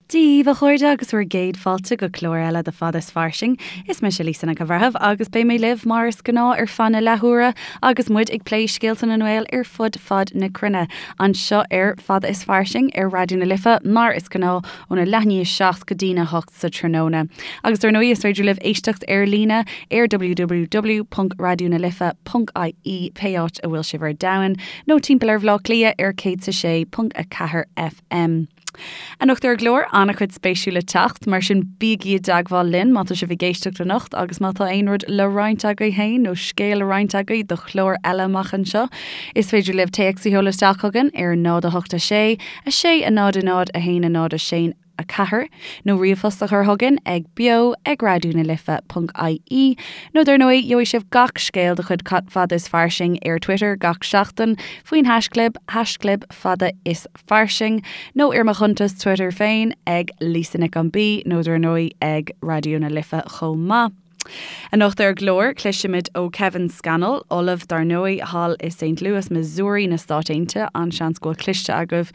Dia daoibh a chairde agus bhur gcéad fáilte go clár eile de Fada is Fairsing. Is mise Lisa Nic an Bhreithimh agus beidh mé libh mar is gnáth ar feadh na leathuaire agus muid ag plé scéalta na nGael ar fud fad na cruinne anseo ar Fada is Fairsing ar Raidió na Life mar is gnáth óna leath i ndiaidh a 7 go dtína 8 sa tráthnóna. Agus dar ndóigh is féidir libh éisteacht ar líne ar www.raidionalife.ie pé áit a bhfuil sibh ar domhan nó timpeall ar Bhaile Átha Cliath ar 106.4 FM. Anocht ar an gclár, an-chuid spéisiúil le teacht, mar sin bígí i dteagmháil linn má tá sibh ag éisteacht anocht agus má tá aon rud le roinnt agaibh féin nó scéal le roinnt agaibh do chlár eile amach anseo. Is féidir libh téacs a sheoladh isteach chugainn ar 0 8 6 6 0 0 1 0 6 4 nó ríomhphost a chur chugainn ag beo ag raidionalife.ie nó dar ndóigh gheobhaidh sibh gach scéal de chuid Fada is Fairsing ar Twitter gach seachtain faoin haischlib, haischlib fada is fairsing, nó ar mo chuntas Twitter féin ag Lisa Nic an B nó dar ndóigh ag Raidió na Life chomh maith. Anocht ar an gclár, cloisfimid ó Kevin Scannell, ollamh dar ndóigh thall i St. Louis, Missouri na Stáit Aontaithe. An-seans go bhfuil cloiste agaibh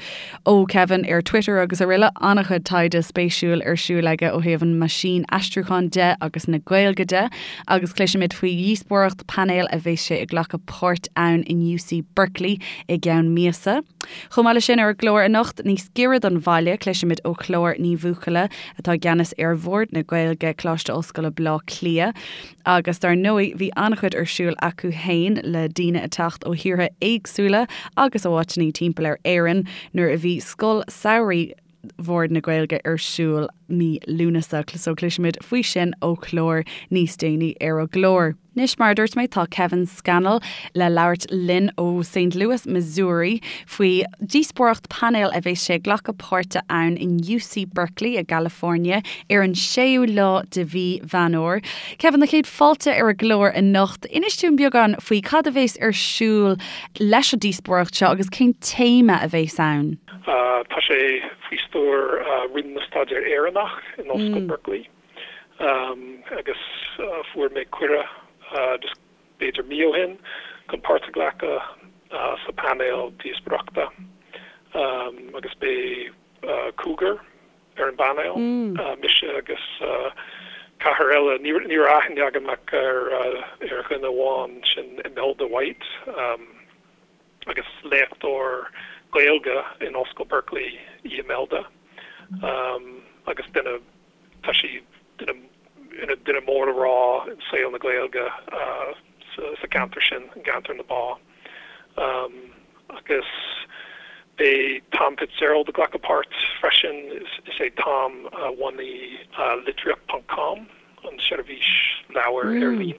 ó Kevin ar Twitter agus araile. An-chuid taighde spéisiúil ar siúl aige ó thaobh an meaisín aistriúcháin de agus na Gaeilge de. Agus cloisfimid faoi dhíospóireacht painéil a bheas sé ag glacadh páirt ann in UC Berkeley i gceann míosa. Chomh maith leis sin, ar an gclár anocht, níos giorra don bhaile, cloisfimid ó Chlár Ní Bhuachalla, atá i gceannas ar Bhord na Gaeilge, Coláiste Ollscoile Bleá Cliath. Agus dar ndóigh, bhí an-chuid ar siúl acu fhéin le daoine ag teacht ó thíortha éagsúla agus ó áiteanna timpeall ar Éirinn nuair a bhí Scoil Samhraidh Bhord na Gaeilge ar siúl mí Lúnasa. So cloisfimid faoi sin ó Chlár níos déanaí ar an gclár. Anois, mar a dúirt mé, tá Kevin Scannell le labhairt linn ó St. Louis, Missouri, faoi dhíospóireacht painéil a bheas sé ag glacadh páirte ann in UC Berkeley i gCalifornia ar an séú lá de mhí Mheán Fhómhair. Kevin, na chéad fáilte ar an gclár anocht. Inis dúinn beagán faoi cad a bheas ar siúl leis an díospóireacht seo agus cén téama a bheas ann. Tá sé faoi stiúir Roinn na Staidéar Éireannach in Ollscoil Berkeley. Agus fuair mé cuireadh just b'fhéidir mí ó shin chun páirt a ghlacadh sa painéal díospóireachta agus beidh cúigear ar an bpainéal, mise agus ceathrar eile. Ní raibh aithne agam ach ar dhuine amháin, sin Imelda White. Agus léachtóir Gaeilge in Ollscoil Berkeley í Imelda agus duine, tá sí duine, ina duine mór le rá i saol na Gaeilge sa gceantar sin, i gceantar na bá. Agus beidh Tom Fitzgerald ag glacadh páirt freisin, is é Tom a bhunaigh Litríocht ponc com, an seirbhís leabhar ar líne.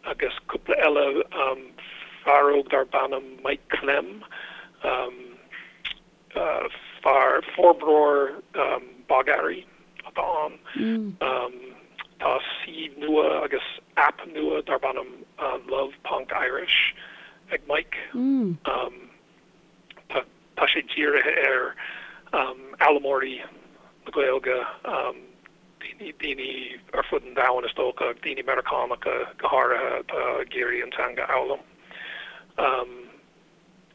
Agus cúpla eile, fear óg darb ainm Mike Klemm, fear, forbróir bogearraí atá ann. Tá suíomh nua agus aip nua darb ainm Love Ponc Irish ag Mike. Tá sé dírithe ar fhoghlaimeoirí na Gaeilge. daoine ar fud an domhain is dócha, daoine Meiriceánacha go háirithe atá ag iarraidh an teanga a fhoghlaim.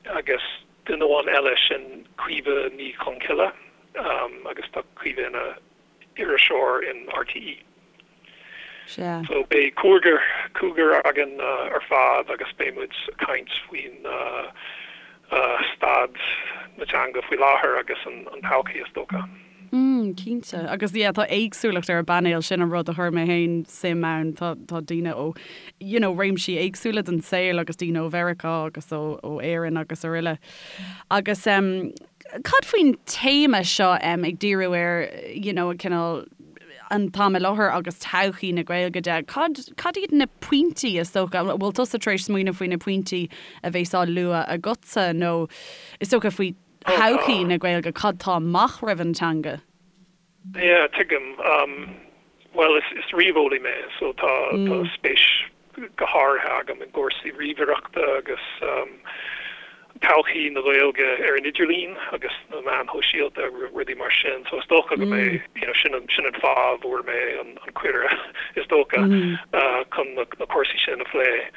Agus duine amháin eile, sin Caoimhe Ní Chonchoille agus tá Caoimhe ina iriseoir in RTÉ. Sea. So beidh cúigear, cúigear againn ar fad agus beidh muid ag caint faoin staid na teanga faoi láthair agus an todhchaí is dócha. Mm, cinnte. Agus yeah, tá éagsúlacht ar an bpainéal, sin an rud a chuir mé féin suim ann. Tá, tá daoine ó, you know, réimsí éagsúla den saol agus daoine ó Mheiriceá agus ó, ó Éirinn agus araile. Agus em, cad faoin téama seo em, ag díriú ar, you know, cineál an t-am i láthair agus todhchaí na Gaeilge de, cad, cad iad na pointí is dócha, an bhfuil tusa tar éis smaoineamh faoi na pointí a bheas á lua agatsa nó is dócha faoi thodhchaí na Gaeilge, cad tá amach roimh an teanga? Yeah, tuigim. Bhuel, is ríomheolaí mé, so tá spéis go háirithe agam i gcúrsaí ríomhaireachta agus todhchaí na Gaeilge ar an idirlíon agus na meáin shóisialta, rudaí mar sin. So is dócha go mbeidh, you know, sin an, sin an fáth a bhfuair mé an cuireadh, is dócha, chun na cúrsaí sin a phlé.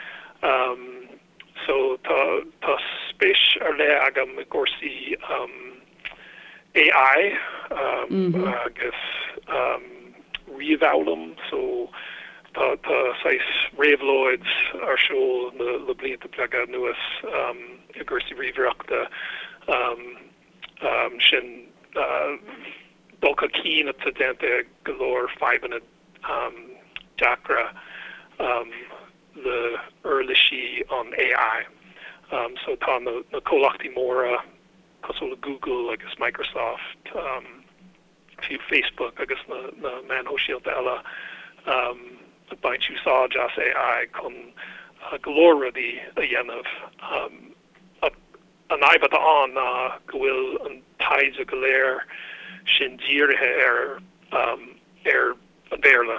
So tá, tá spéis ar leith agam i gcúrsaí. AI agus ríomhfhoghlaim so tá tá saghas réabhlóid ar siúl le blianta beaga anuas i gcúrsaí ríomhaireachta sin dul chun cinn atá déanta ag go leor fadhbanna deacra le uirlisí an AI. So tá na comhlachtaí móra cosúil le Google agus Microsoft, fiú Facebook agus na meáin shóisialta eile, ag baint úsáid as AI chun go leor rudaí a dhéanamh. Ach an fhadhb atá ann ná go bhfuil an taighde go léir sin dírithe ar ar an Bhéarla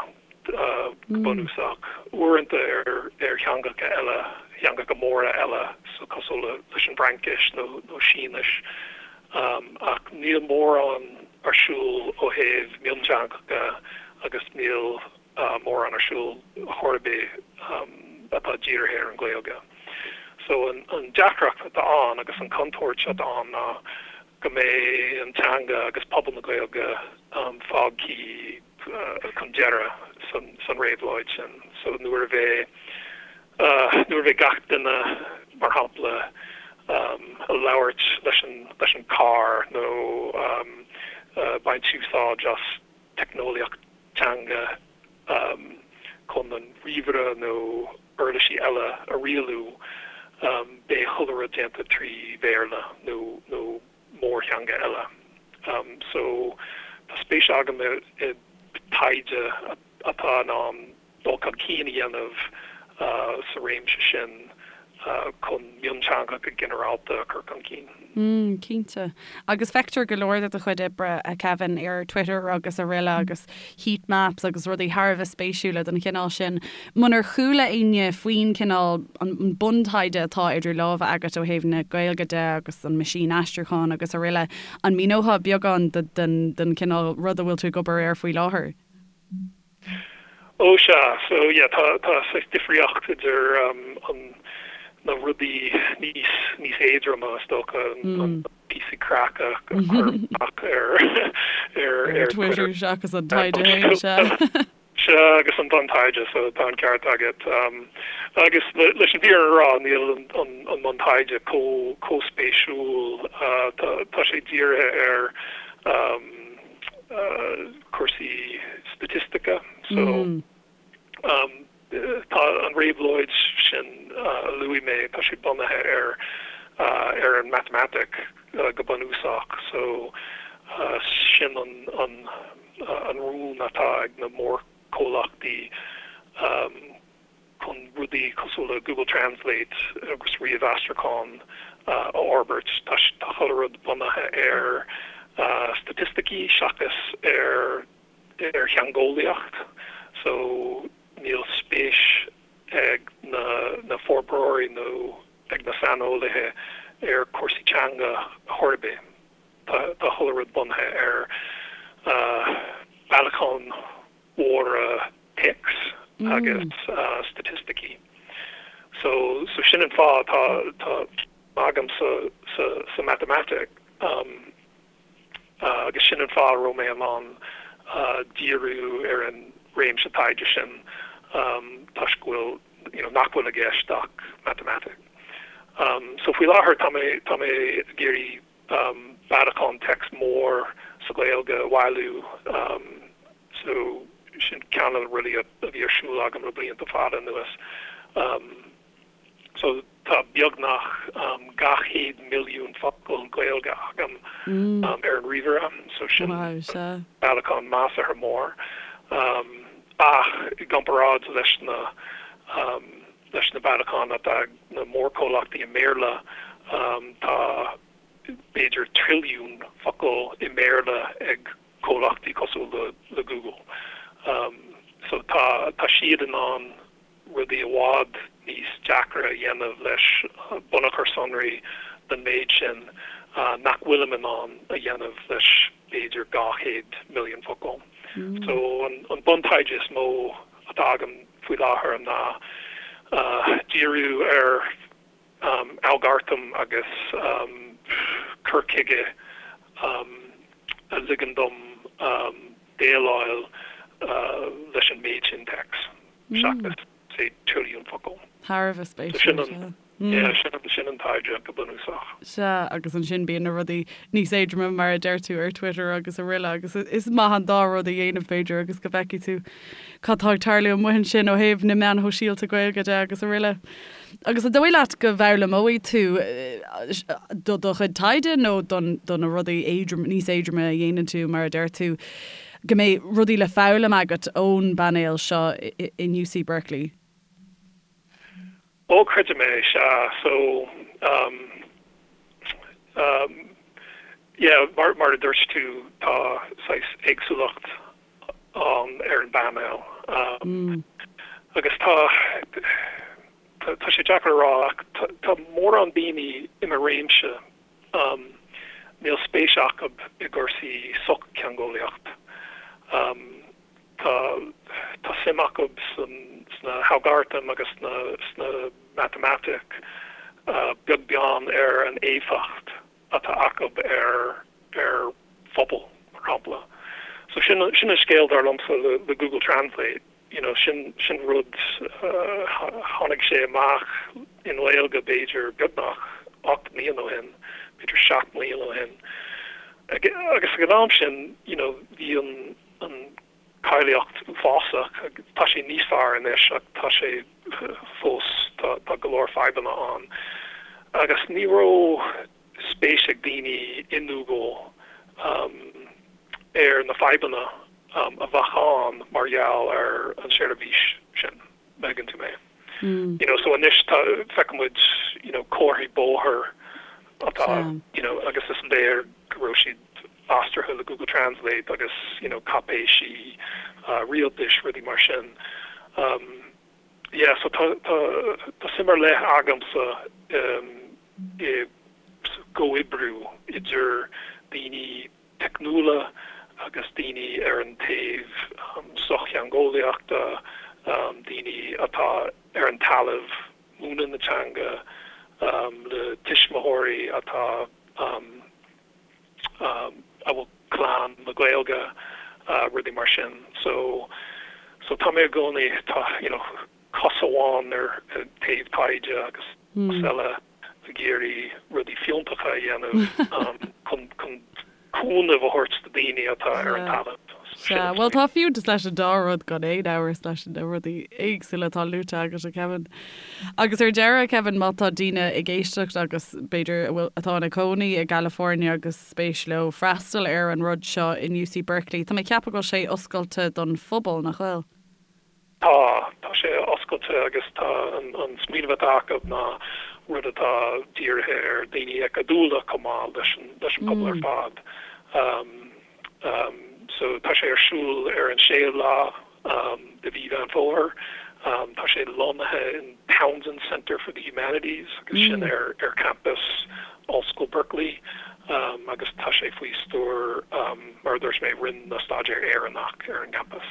go bunúsach, uaireanta ar theangacha eile, theangacha móra eile, so cosúil leis an bhFraincis nó Sínis, ach níl mórán ar siúl ó thaobh mionteangacha agus níl mórán ar siúl chor ar bith atá dírithe ar an Ghaeilge. So an deacracht atá ann agus an chontúirt atá ann ná go mbeidh an teanga agus pobal na Gaeilge fágtha chun deireadh san réabhlóid sin. So nuair a bheidh nuair a bheidh gach duine, mar shampla, ag labhairt leis an leis an carr nó baint úsáid as teicneolaíocht teanga chun an ríomhaire nó uirlisí eile a rialú, beidh chuile rud déanta trí Bhéarla nó nó mórtheanga eile. So tá spéis agam i dtaighde atá in ann dul chun cinn a dhéanamh sa réimse sin chun mionteangacha ginearálta a chur chun cinn. Mm, cinnte. Agus feictear go leor de do chuid oibre, a Kevin, ar Twitter agus araile agus heat maps agus rudaí thar a bheith spéisiúla den chineál sin. Munar chuala éinne faoin cineál, an buntaighde atá idir lámha agat ó thaobh na Gaeilge de agus an meaisín aistriúcháin agus araile, an míneofá beagán den chineál rud a bhfuil tú ag obair air faoi láthair? Ó sea, so yeah, tá tá saghas difríocht idir an na rudaí níos níos éadroma is dócha, an píosaí craic a chuirim amach ar ar ar Twitter seachas an taighde féin, sea. Sea, agus an buntaighde, so tá an ceart agat. Agus leis an bhfírinne a rá, níl an an an buntaighde chomh chomh spéisiúil, tá tá sé dírithe ar cúrsaí staitistice. So tá an réabhlóid sin a luaigh mé, tá sé bunaithe ar ar an matamaitic go bunúsach. So sin an an an rún atá ag na mórchomhlachtaí. chun rudaí cosúil le Google Translate agus ríomhaistriúchán a fhorbairt. Tá chuile rud bunaithe ar staitisticí seachas ar ar theangeolaíocht so níl spéis ag na na forbróirí nó ag na saineolaithe ar chúrsaí teanga chor ar bith. Tá chuile rud bunaithe ar bailiúcháin mhóra téacs agus staitisticí. So so sin an fáth tá tá agam sa sa sa matamaitic agus sin an fáth a raibh mé in ann díriú ar an réimse taighde sin toisc go bhfuil you know nach bhfuil i gceist ach matamaitic. So faoi láthair tá mé tá mé ag iarraidh bailiúchán téacs mór sa Ghaeilge a bhailiú so sin ceann de na rudaí a bhí ar siúl agam le blianta fada anuas. So tá beagnach 200 milliún focal Gaeilge agam ar an ríomhaire so sin bailiúchán measartha mór ach i gcomparáid leis na leis na bailiúcháin atá ag na mórchomhlachtaí i mBéarla, tá b'fhéidir trilliún focal i mBéarla ag comhlachtaí cosúil le Google. So tá tá siad in ann rudaí i bhfad níos deacra a dhéanamh leis bunachar sonraí den méid sin nach bhfuilim in ann a dhéanamh leis b'fhéidir 200 milliún focal. So an buntaighde is mó atá agam faoi láthair ná díriú ar algartaim agus cur chuige. a ligeann dom déileáil leis an méid sin téacs seachas, say, trilliún focal. Thar a bheith spéisiúil, sea. Yeah, sin an taighde go bunúsach. Sea, agus ansin bíonn na rudaí níos éadroime, mar a deir tú, ar Twitter agus araile agus is maith an dá rud a dhéanamh, b'fhéidir, agus go bhfeicfidh tú cad tá ag tarlú amuigh ansin ó thaobh na meáin shóisialta Gaeilge de agus araile. Agus an dóigh leat go bhfoghlaimeoidh tú do do chuid taighde nó don do na rudaí éadrom, níos éadroime a dhéanann tú, mar a deir tú, go mbeidh rudaí le foghlaim agat ón bpainéal seo in UC Berkeley? Ó, creidim é, sea. So, um, um, yeah, mar, mar a dúirt tú, tá saghas éagsúlacht ann ar an bpainéal. Um, agus tá, tá, tá sé deacair a rá ach tá, tá mórán daoine i mo réimse, um, níl spéis acu i gcúrsaí sochtheangeolaíocht. Um, Tá tá suim acu sna halgartaim agus sna sna matamaitic, beag beann ar an éifeacht atá acu ar ar phobal, mar shampla. So sin sin an scéal dar liomsa le le Google Translate, you know, sin sin rud tháinig sé amach i nGaeilge b'fhéidir beagnach 8 mbliana ó shin, b'fhéidir 7 mbliana ó shin. Agus ag an am sin, you know, bhí an an cáilíocht uafásach. Tá sé níos fearr anois ach tá sé fós, tá go leor fadhbanna ann. Agus ní raibh spéis ag daoine i nGoogle ar na fadhbanna a bheadh ann mar gheall ar an seirbhís sin. Má thuigeann tú mé. You know, so anois tá, feiceann muid, you know, comharthaí bóthair atá, you know, agus is léir go raibh siad aistrithe le Google Translate agus, you know, cáipéisí rialtais, rudaí mar sin. Um, yeah, so tá, tá, tá suim ar leith agamsa um, i gcomhoibriú idir daoine teicniúla agus daoine ar an taobh sochtheangeolaíochta, daoine atá ar an talamh múineadh na teanga, le tuismitheoirí atá a bhfuil clann le Gaeilge, rudaí mar sin. So, so tá mé i gcónaí, tá, you know, cos amháin ar an taobh taighde agus cos eile ag iarraidh rudaí fiúntacha a dhéanamh chun cúnamh a thabhairt do daoine atá ar an talamh. Sea, bhuel tá fiúntas leis an dá rud gan aon amhras leis na rudaí éagsúla atá luaite agat, a Kevin. Agus ar deireadh, Kevin, má tá daoine ag éisteacht agus b'fhéidir a bhfuil, atá ina cónaí i gCalifornia agus spéis leo freastal ar an rud seo in UC Berkeley, tá mé ag ceapadh go bhfuil sé oscailte don phobal, nach bhfuil? Tá, tá sé oscailte agus tá an smaoineamh atá acu ná rud atá dírithe ar daoine acadúla chomh maith leis an leis an pobal ar fad. So tá sé ar siúl ar an séú lá de mhí Mheán Fómhair. Tá sé lonnaithe in Townsend Center for the Humanities agus sin ar ar campas Ollscoil Berkeley agus tá sé faoi stiúir mar a dúirt mé Roinn na Staidéar Éireannach ar an gcampas.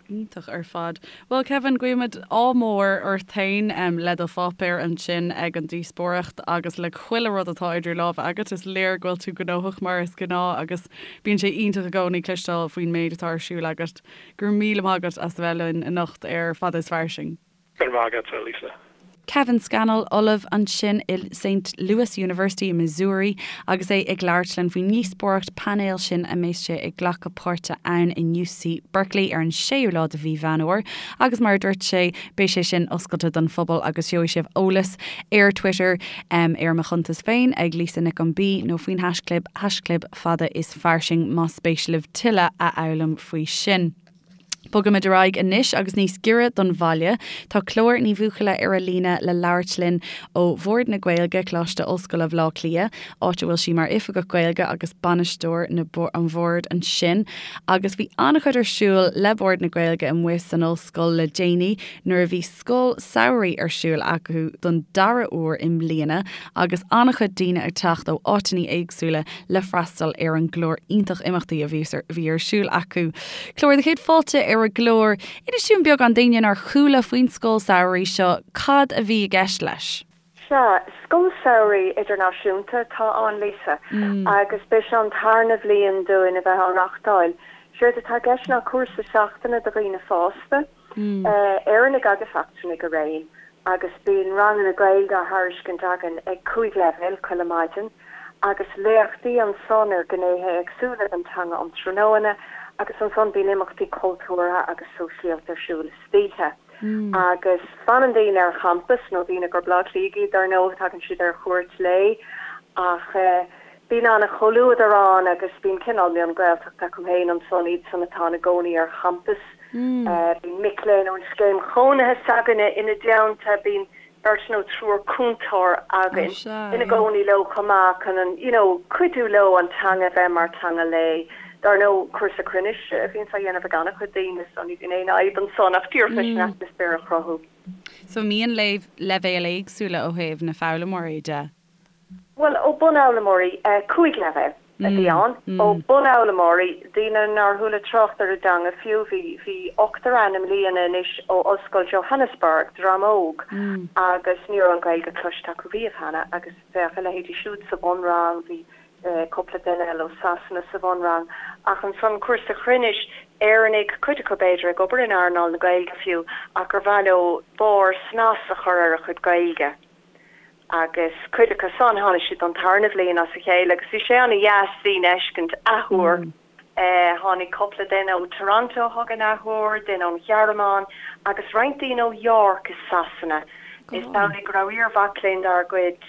Iontach ar fad. Bhuel Kevin, guímid ádh mór ort féin le do pháipéar ansin ag an díospóireacht agus le chuile rud atá idir lámha agat. Is léir go bhfuil tú gnóthach mar is gnáth agus bíonn sé iontach i gcónaí cloisteáil faoin méid atá ar siúl agat. Go raibh míle maith agat as a bheith linn anocht ar Fada is Fairsing. Go raibh maith agat, a Lisa. Kevin Scannell, Ollamh ansin i Saint Louis University i Missouri agus é ag labhairt linn faoin ndíospóireacht painéil sin a mbeas sé ag glacadh páirte ann in UC Berkeley ar an séú lá de mhí Mheán Fhómhair agus mar a dúirt sé beidh sé sin oscailte don phobal agus gheobhaidh sibh eolas ar Twitter ar mo chuntas féin ag Lisa Nic an B nó faoin haischlib haischlib fada is fairsing más spéis libh tuilleadh a fhoghlaim faoi sin. Bogaimid ar aghaidh anois agus níos giorra don bhaile. Tá Clár Ní Bhuachalla ar an líne le labhairt linn ó Bhord na Gaeilge, Coláiste Ollscoile Bhaile Átha Cliath, áit a bhfuil sí mar Oifigeach Gaeilge agus Bainisteoir na an Bhoird ansin. Agus bhí an-chuid ar siúl le Bord na Gaeilge amuigh san ollscoil le déanaí nuair a bhí scoil samhraidh ar siúl acu don dara huair i mbliana agus an-chuid daoine ag teacht ó áiteanna éagsúla le freastal ar an gclár iontach imeachtaí a bhí ar siúl acu. Clár do chéad fáilte ar an gclár. Inis dúinn beagán d'éinne nár chuala faoin scoil samhraidh seo, cad a bhí i gceist leis? Sea, scoil samhraidh idirnáisiúnta atá ann, Lisa, agus b'é seo an tarna bhliain dúinn a bheith á reachtáil. Séard atá i gceist ná cúrsa seachtaine do dhaoine fásta, Éireannaigh agus eachtrannaigh araon, agus bíonn ranganna Gaeilge á thairiscint againn ag 5 leibhéal chuile maidin, agus léachtaí ansan ar ghnéithe éagsúla den teanga um tráthnóna, agus ansan bíonn imeachtaí cultúrtha agus sóisialta ar siúl istoíche. Agus fanann daoine ar champas, nó daoine gur Bleá Cliathaigh iad dar ndóigh, tagann siad ar chuairt lae, ach bíonn an-chomhluadar ann agus bíonn cineál mion-Ghaeltacht acu féin ansan, iadsan atá ina gcónaí ar champas. Bíonn mic léinn ón scéim chónaithe s'againne ina dteannta, bíonn beirt nó triúr cúntóir againn ina gcónaí leo chomh maith chun an, you know, cuidiú leo an teanga a bheith mar teanga lae. Dar ndóigh, cúrsa cruinnis a bhíonns á dhéanamh ag an-chuid daoine so ní bhíonn aon fhadhb ansan ach díreach leis an atmaisféar a chruthú. So an mbíonn leibhéil éagsúla ó thaobh na foghlaimeoirí de? Bhuel, ó bunfhoghlaimeoirí, 5 leibhéal a bhí ann, ó bunfhoghlaimeoirí, daoine nár chuala trácht ar an dteanga fiú, bhí, bhí ochtar ann i mbliana anois ó Ollscoil Johannesburg, dream óg, agus ní raibh an Ghaeilge cloiste acu riamh cheana agus bheadh a leithéidí siúd sa bhunrang, bhí cúpla duine eile ó Sasana sa bhunrang, ach ansan cúrsa chruinnis, Éireannaigh, cuid acu b'fhéidir ag obair in earnáil na Gaeilge fiú, ach gur mhaith leo barr, snas a chur ar a chuid Gaeilge. Agus cuid acu san, tháinig siad don tarna bhliain as a chéile agus bhí sé ana-dheas daoine a fheiscint athuair. Tháinig cúpla duine ó Toronto chugainn athuair, duine ón Ghearmáin agus roinnt daoine ó York i Sasana. Is amhlaidh go raibh iar-mhac léinn dár gcuid,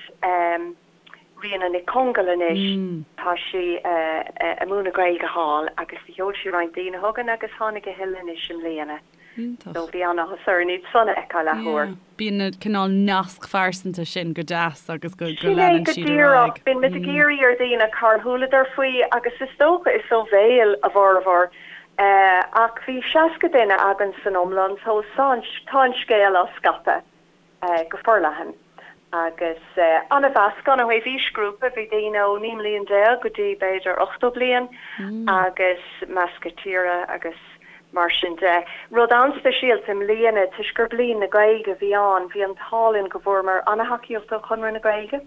Ríona Nic Congail anois, tá sí ag múineadh Gaeilge thall agus do sheol sí roinnt daoine chugainn agus tháinig a thuilleadh anois i mbliana. Iontach. So bhí an-áthas orainn iad san a fheiceáil athuair. Yeah. Bíonn na cineál nasc phearsanta sin go deas agus go Sin é leanann go siad ar díreach. aghaidh. Bíonn muid ag iarraidh ar dhaoine cár chualadar faoi agus is dócha is ó bhéal a bhformhór. Ach bhí 60 duine againn san iomlán so tá an scéal á scaipeadh. go forleathan agus an-mheascán ó thaobh aoisghrúpa, bhí daoine ó 19 mbliain go dtí b'fhéidir 80 bliain agus meascadh tíre agus mar sin de. Rud an-speisialta i mbliana, toisc gur Bliain na Gaeilge a bhí ann, bhí an t-ádh linn go bhfuaireamar an-thacaíocht ó Chonradh na Gaeilge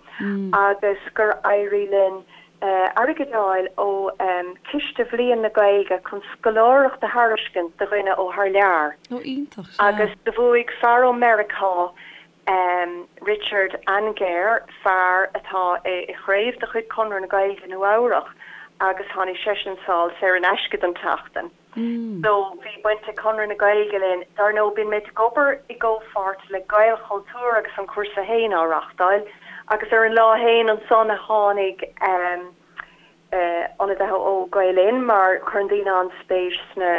agus gur éirigh linn airgead a fháil ó Chiste Bhliain na Gaeilge chun scoláireacht a thairiscint do dhuine ó thar lear. Ó iontach, sea. Agus do bhuaigh fear ó Meiriceá, Richard Angehr, fear atá i chraobh de chuid Chonradh na Gaeilge i Nua Eabhrach agus tháinig seisean sall saor in aisce don tseachtain. So bhí baint ag Conradh na Gaeilge linn. Dar ndóigh bíonn muid ag obair i gcomhpháirt le Gaelchultúr agus an cúrsa féin á reachtáil agus ar an lá féin ansan a tháinig ionadaithe ó Gael Linn mar cuireann daoine an-spéis sna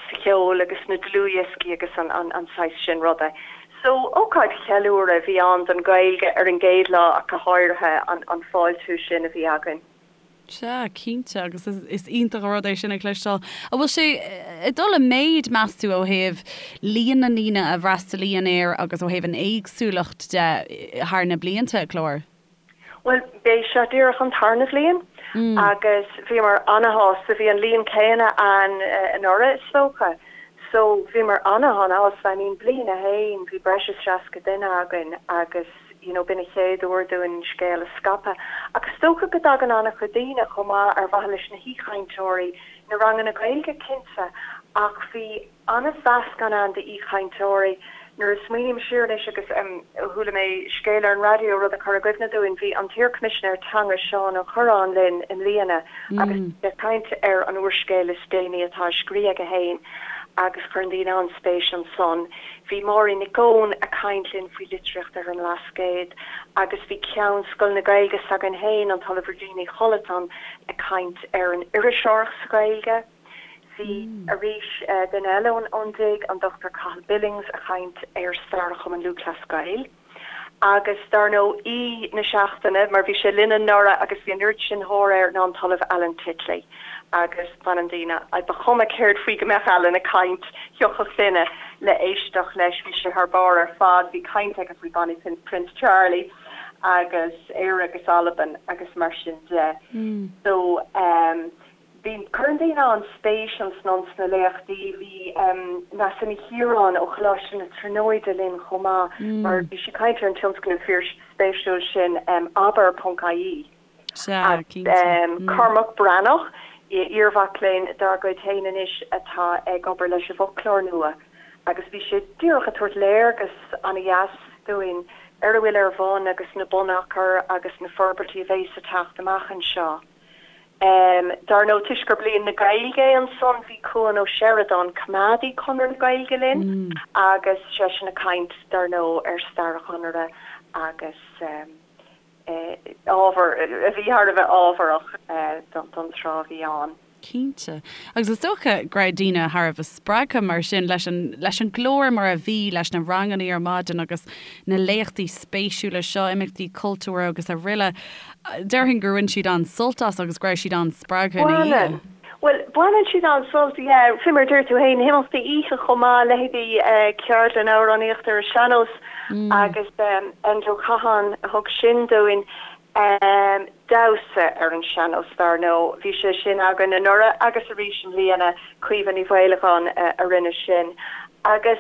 sa cheol agus sna dlúthdhioscaí agus an an saghas sin ruda. So ócáid cheiliúradh a bhí ann don Ghaeilge ar an gcéad lá ach go háirithe an an fáiltiú sin a bhí againn. Sea, cinnte, agus is iontach an rud é sin a chloisteáil. An bhfuil sé ag dul i méid, meas tú, ó thaobh líon na ndaoine a bhfreastalaíonn air agus ó thaobh an éagsúlacht de thar na blianta, a Chlár? Bhuel, b'é seo díreach an tarna bhliain agus bhíomar ana-shásta. Bhí an líon céanna ann anuraidh, is dócha. So, bhíomar ana-ana-shásta. I mean, bliain a haon, bhí breis is 60 duine againn agus, you know, b'in an chéad uair dúinn an scéal a scaipeadh. Ach is dócha go dtagann an-chuid daoine chomh maith ar mhaithe leis na haoichainteoirí, na ranganna Gaeilge cinnte, ach bhí an-mheascán ann d'aoichainteoirí. Nuair a smaoiním siar anois agus em chuala mé scéal ar an raidió, rud a chuir i gcuimhne dúinn, bhí an t-iar-Choimisinéir Teanga Seán Ó Cuirreáin linn i mbliana agus bhí sé ag caint ar an úrscéal is déanaí atá á scríobh aige féin agus chuir daoine an-spéis ansan. Bhí Máirín Nic Eoin ag caint linn faoi litríocht ar an mBlascaod agus bhí Ceann Scoil na Gaeilge s'againn féin, an tOllamh Regina Ní Chollatáin, ag caint ar an iriseoireacht sa Ghaeilge. Bhí arís duine eile ón DIG, an Dr Cathal Billings, ag caint ar stair Chumann Lúthchleas Gael. Agus dar ndóigh aoi na seachtaine, mar bhí sé linn anuraidh agus bhí an oiread sin tóir air, ná an tOllamh Alan Titley. Agus baineann daoine, ba chuma céard faoi go mbeadh Alan ag caint, thiocfadh duine le éisteacht leis, bhí sé thar barr ar fad. Bhí caint aige faoi Bonnie Prince Charlie agus Éire agus Albain agus mar sin de. So. Bhí, cuireann daoine an-spéis ansan sna léachtaí. Bhí Neasa Ní Chiaráin ó Choláiste na Tríonóide linn chomh maith mar bhí sí ag caint ar an tionscnamh fíorspéisiúil sin Abair ponc ie. Sea, cinnte. Cormac Breathnach, iarmhac léinn dár gcuid féin anois atá ag obair leis an bhfoclóir nua agus bhí sé díreach ag tabhairt léargas ana-dheas dúinn ar a bhfuil ar bun agus na bunachair agus na forbairtí a bheas ag teacht amach anseo. Dar ndóigh, toisc gur Bliain na Gaeilge é ansan, bhí Cuan Ó Seireadáin, coimeádaí Chonradh na Gaeilge linn agus seisean ag caint, dar ndóigh, ar stair an Chonartha agus ábhar a bhí thar a bheith ábharach don tráth a bhí ann. Cinnte. Agus is dócha go raibh daoine thar a bheith spreagtha mar sin leis an, leis an gclár mar a bhí, leis na ranganna ar maidin agus na léachtaí spéisiúla seo, imeachtaí cultúrtha agus aroile. Déarfainn gur bhain siad an-sult as agus go raibh siad an-spreagtha ina dhiaidh. Baineann. Bhuel, baineann siad an-sult, yeah. Fé mar a deir tú féin, na himeachtaí oíche chomh maith, leithéidí ceardlann amhránaíochta ar an sean-nós agus Enda Ó Catháin a thug sin dúinn. Damhsa ar an sean-nós, dar ndóigh. Bhí sé sin againn anuraidh agus arís i mbliana, Caoimhe Ní Mhaolagáin a rinne sin. Agus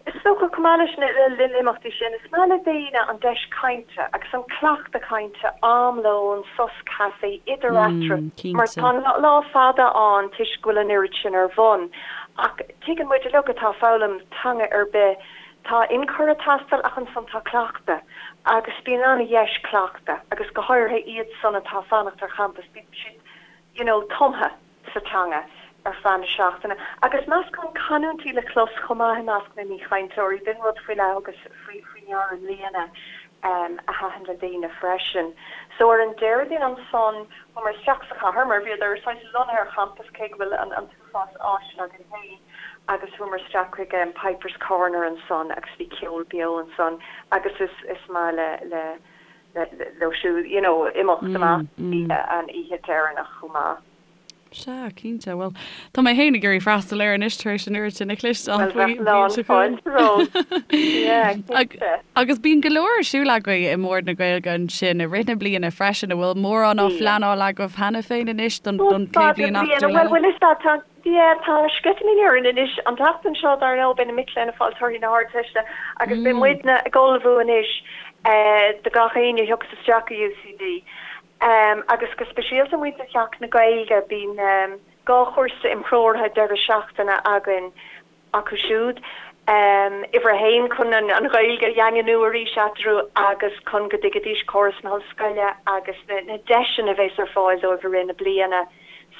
is dócha, chomh maith leis na himeachtaí sin, is maith le daoine an deis cainte agus an cleachtadh cainte, am lóin, sos caife, idir eatarthu, mar tá an lá fada ann toisc go bhfuil an oiread sin ar bun. Ach tuigeann muid uilig atá ag foghlaim teanga ar bith, Tá ionchur ag teastáil ach ansan tá cleachtadh agus bíonn an-dheis cleachtadh agus go háirithe iad san atá ag fanacht ar champas, bíonn siad you know tumtha sa teanga ar feadh na seachtaine. Agus meascán canúintí le clos chomh maith i measc na n-aoichainteoirí, b'in rud faoi leith a thugas faoi ndeara i mbliana a thaitin le daoine freisin. So ar an Déardaoin ansan chuamar isteach sa chathair mar bhíodar saghas lonnaithe ar champas cé go bhfuil an t-uafás áiseanna againn féin agus chuamar isteach chuig Pipers Corner ansan agus bhí ceol beo ansan agus is is maith le le leo siúd you know imeacht amach an oíche deireanach chomh maith. Sea, cinnte. Bhuel, tá mé féin ag iarraidh freastal air anois tar éis an oiread sin a chloisteáil Bhuel, faoi bheadh lán seo chugainn. fáilte romhat. Yeah, cinnte. Agus bíonn go leor ar siúl agaibh i mBord na Gaeilge ansin i rith na bliana freisin, an bhfuil mórán á phleanáil agaibh cheana féin anois don don chéad bhliain acadúil eile? Bhuel, is ea, tá, yeah, tá sceitimíní orainn anois. An tseachtain seo, dar ndóigh, beidh na mic léinn ag fáil torthaí na hArdteiste agus beidh muidne ag ullmhú anois do gach éinne a thiocfas isteach go UCD. Agus go speisialta muintir Theach na Gaeilge, bíonn 2 chúrsa imthreoraithe deireadh seachtaine againn acu siúd, uimhir a haon chun an Ghaeilge a dhaingniú arís eatarthu agus chun go dtuigfidís córas na hollscoile agus na deiseanna a bheas ar fáil dóibh i rith na bliana.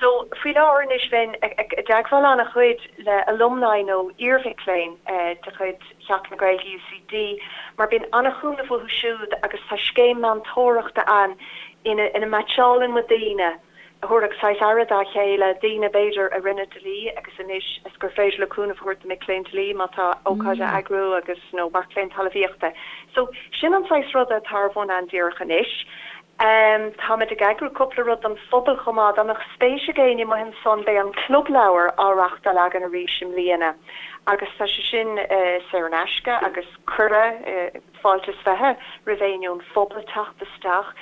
So, faoi láthair anois bheinn i dteagmháil an-chuid le alumni nó iarmhic léinn de chuid Theach na Gaeilge UCD mar bíonn an-chúnamh uathu siúd agus tá scéim meantóireachta ann ina ina meaitseálann muid daoine a thabharfadh saghas aire dá chéile, daoine b'fhéidir a rinne dlí agus anois is gur féidir leo cúnamh a thabhairt do mic léinn dlí má tá ócáid á eagrú agus nó mac léinn talmhaíochta. So, sin an saghas ruda atá ar bun ann díreach anois. Táimid ag eagrú cúpla rud don phobal chomh maith. Dá mbeadh spéis ag éinne amuigh ansan beidh an Club Leabhar á reachtáil againn arís i mbliana agus tá sé sin saor in aisce agus cuireadh, fáilte is 20 roimh éinne ón phobal teacht isteach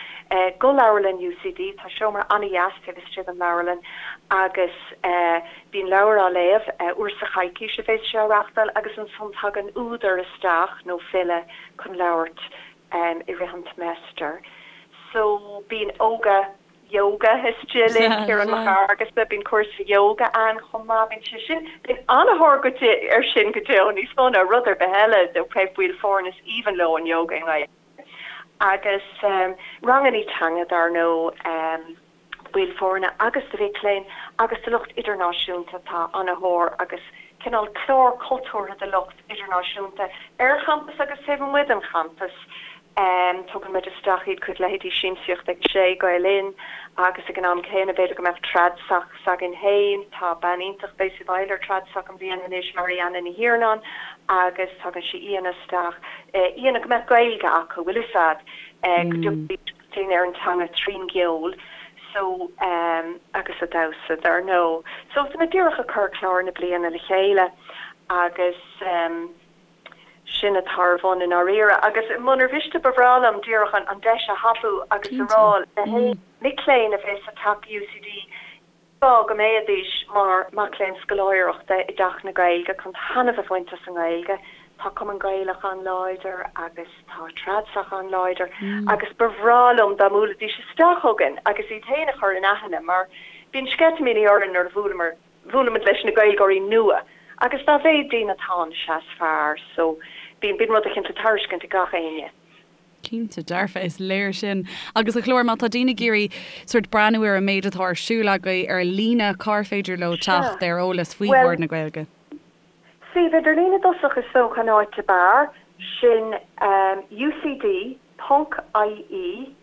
go leabharlann UCD. Tá seomra an-dheas taobh istigh den leabharlann agus bíonn leabhar á léamh, uair sa choicís a bheas sé á reachtáil agus ansan tagann údar isteach nó file chun labhairt i rith an tseimeastair. So bíonn ióga, yoga istigh linn, Ciarán Mac Fhearghusa, bíonn cúrsa yoga ann chomh maith, bíonn sé sin, bíonn an-thóir go air sin go deo, níos mó ná rud ar bith eile, ó thaobh baill foirne is aoibhinn leo an yoga i nGaeilge. Agus rangannaí teanga dar ndóigh. baill foirne agus do mhic léinn agus do lucht idirnáisiúnta. Tá an-thóir agus cineál clár cultúrtha do lucht idirnáisiúnta ar champas agus taobh amuigh den champas. Tugann muid isteach iad chuig leithéidí Siamsaíocht ag a Sé, Gael Linn agus ag an am céanna b'fhéidir go mbeadh Tradsoc s'againn féin. Tá bean iontach a bheas i bhfeighil ar Tradsoc i mbliana anois, Marianna Ní Thiarnáin agus tagann sí aíonna isteach, aíonna go mbeadh Gaeilge acu, bhfuil fhios a'd, go dtiocfaidís chun cinn ar an teanga trín gceol so agus an damhsa dar ndóigh. So tá mé díreach ag cur clár na bliana le chéile agus sin atá ar bun i ndáiríre. Agus munar mhiste ba bhreá liom díreach an deis a thapú agus a rá le haon mic léinn a bheas ag teacht go UCD. Go mbeidís mar mac léinn scoláireachta i dTeach na Gaeilge chun taitneamh a bhaint as an nGaeilge. Tá Cumann Gaelach an-láidir agus tá Tradsoc an-láidir agus ba bhreá liom dá mbuailfidís isteach chugainn agus iad féin a chur in aithne mar bíonn sceitimíní orainn nuair a bhuaileamar, bhuailimid leis na Gaeilgeoirí nua agus dá mhéad daoine atá ann is ea is fearr so bíonn, bíonn rud eicínt le tairiscint ag gach éinne. Cinnte, dearfa, is léir sin. Agus a Chlár, má tá daoine ag iarraidh sórt breathnú ar an méid atá ar siúl agaibh ar líne, cár féidir leo teacht ar eolas faoi Bhord na Gaeilge? Suíomh idirlín i dtosach is dócha an áit ab fhearr, sin ucd ponc ie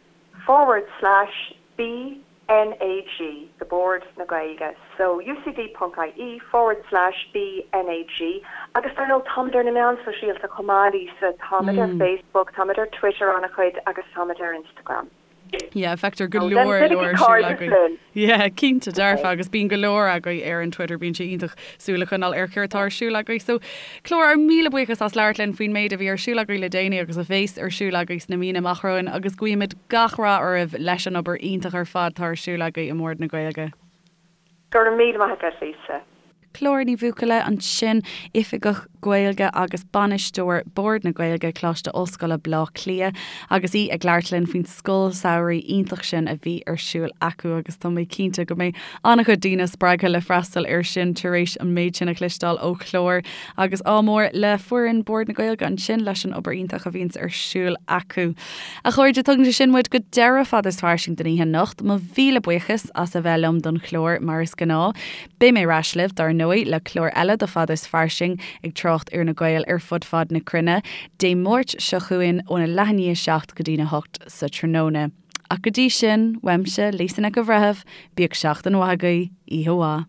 forward slash B NAG, the Bord na Gaeilge, so ucd ponc ie forward slash BNAG agus dar ndóigh táimid ar na meáin sóisialta chomh maith Lisa, táimid ar Facebook, táimid ar Twitter an-chuid agus táimid ar Instagram. Yeah, feictear go leor leor ar siúl agaibh. Yeah, cinnte dearfa agus bíonn go leor agaibh ar an Twitter, bíonn sé iontach súil a choinneáil ar céard atá ar siúl agaibh. So, Clár, ár míle buíochas as labhairt linn faoin méid a bhí ar siúl agaibh le déanaí agus a bhéas ar siúl agaibh sna míonna amach romhainn agus guímid gach rath oraibh leis an obair iontach ar fad atá ar siúl agaibh i mBord na Gaeilge. Go raibh míle maith agat, Lisa. Clár Ní Bhuachalla ansin, Oifigeach Gaeilge agus Bainisteoir Bord na Gaeilge, Coláiste Ollscoile Bleá Cliath, agus í ag labhairt linn faoin scoil samhraidh iontach sin a bhí ar siúl acu agus tá mé cinnte go mbeidh an-chuid daoine spreagtha le freastal air sin tar éis an méid sin a chloisteáil ó Chlár agus ádh mór le foireann Bord na Gaeilge ansin leis an obair iontach a bhíonns ar siúl acu. A chairde, tugann sé sin muid go deireadh Fada is Fairsing don oíche anocht. Mo mhíle buíochas as a bheith liom don chlár mar is gnáth. Beidh mé ar ais libh, dar ndóigh, le clár eile de Fada is Fairsing ag trácht ar na Gaeil ar fud fad na cruinne, Dé Máirt seo chugainn óna leath i ndiaidh 7 go dtína 8 sa tráthnóna. Ach go dtí sin, uaimse, Lisa Nic an Bhreithimh, bíodh seachtain mhaith agaibh, oíche mhaith.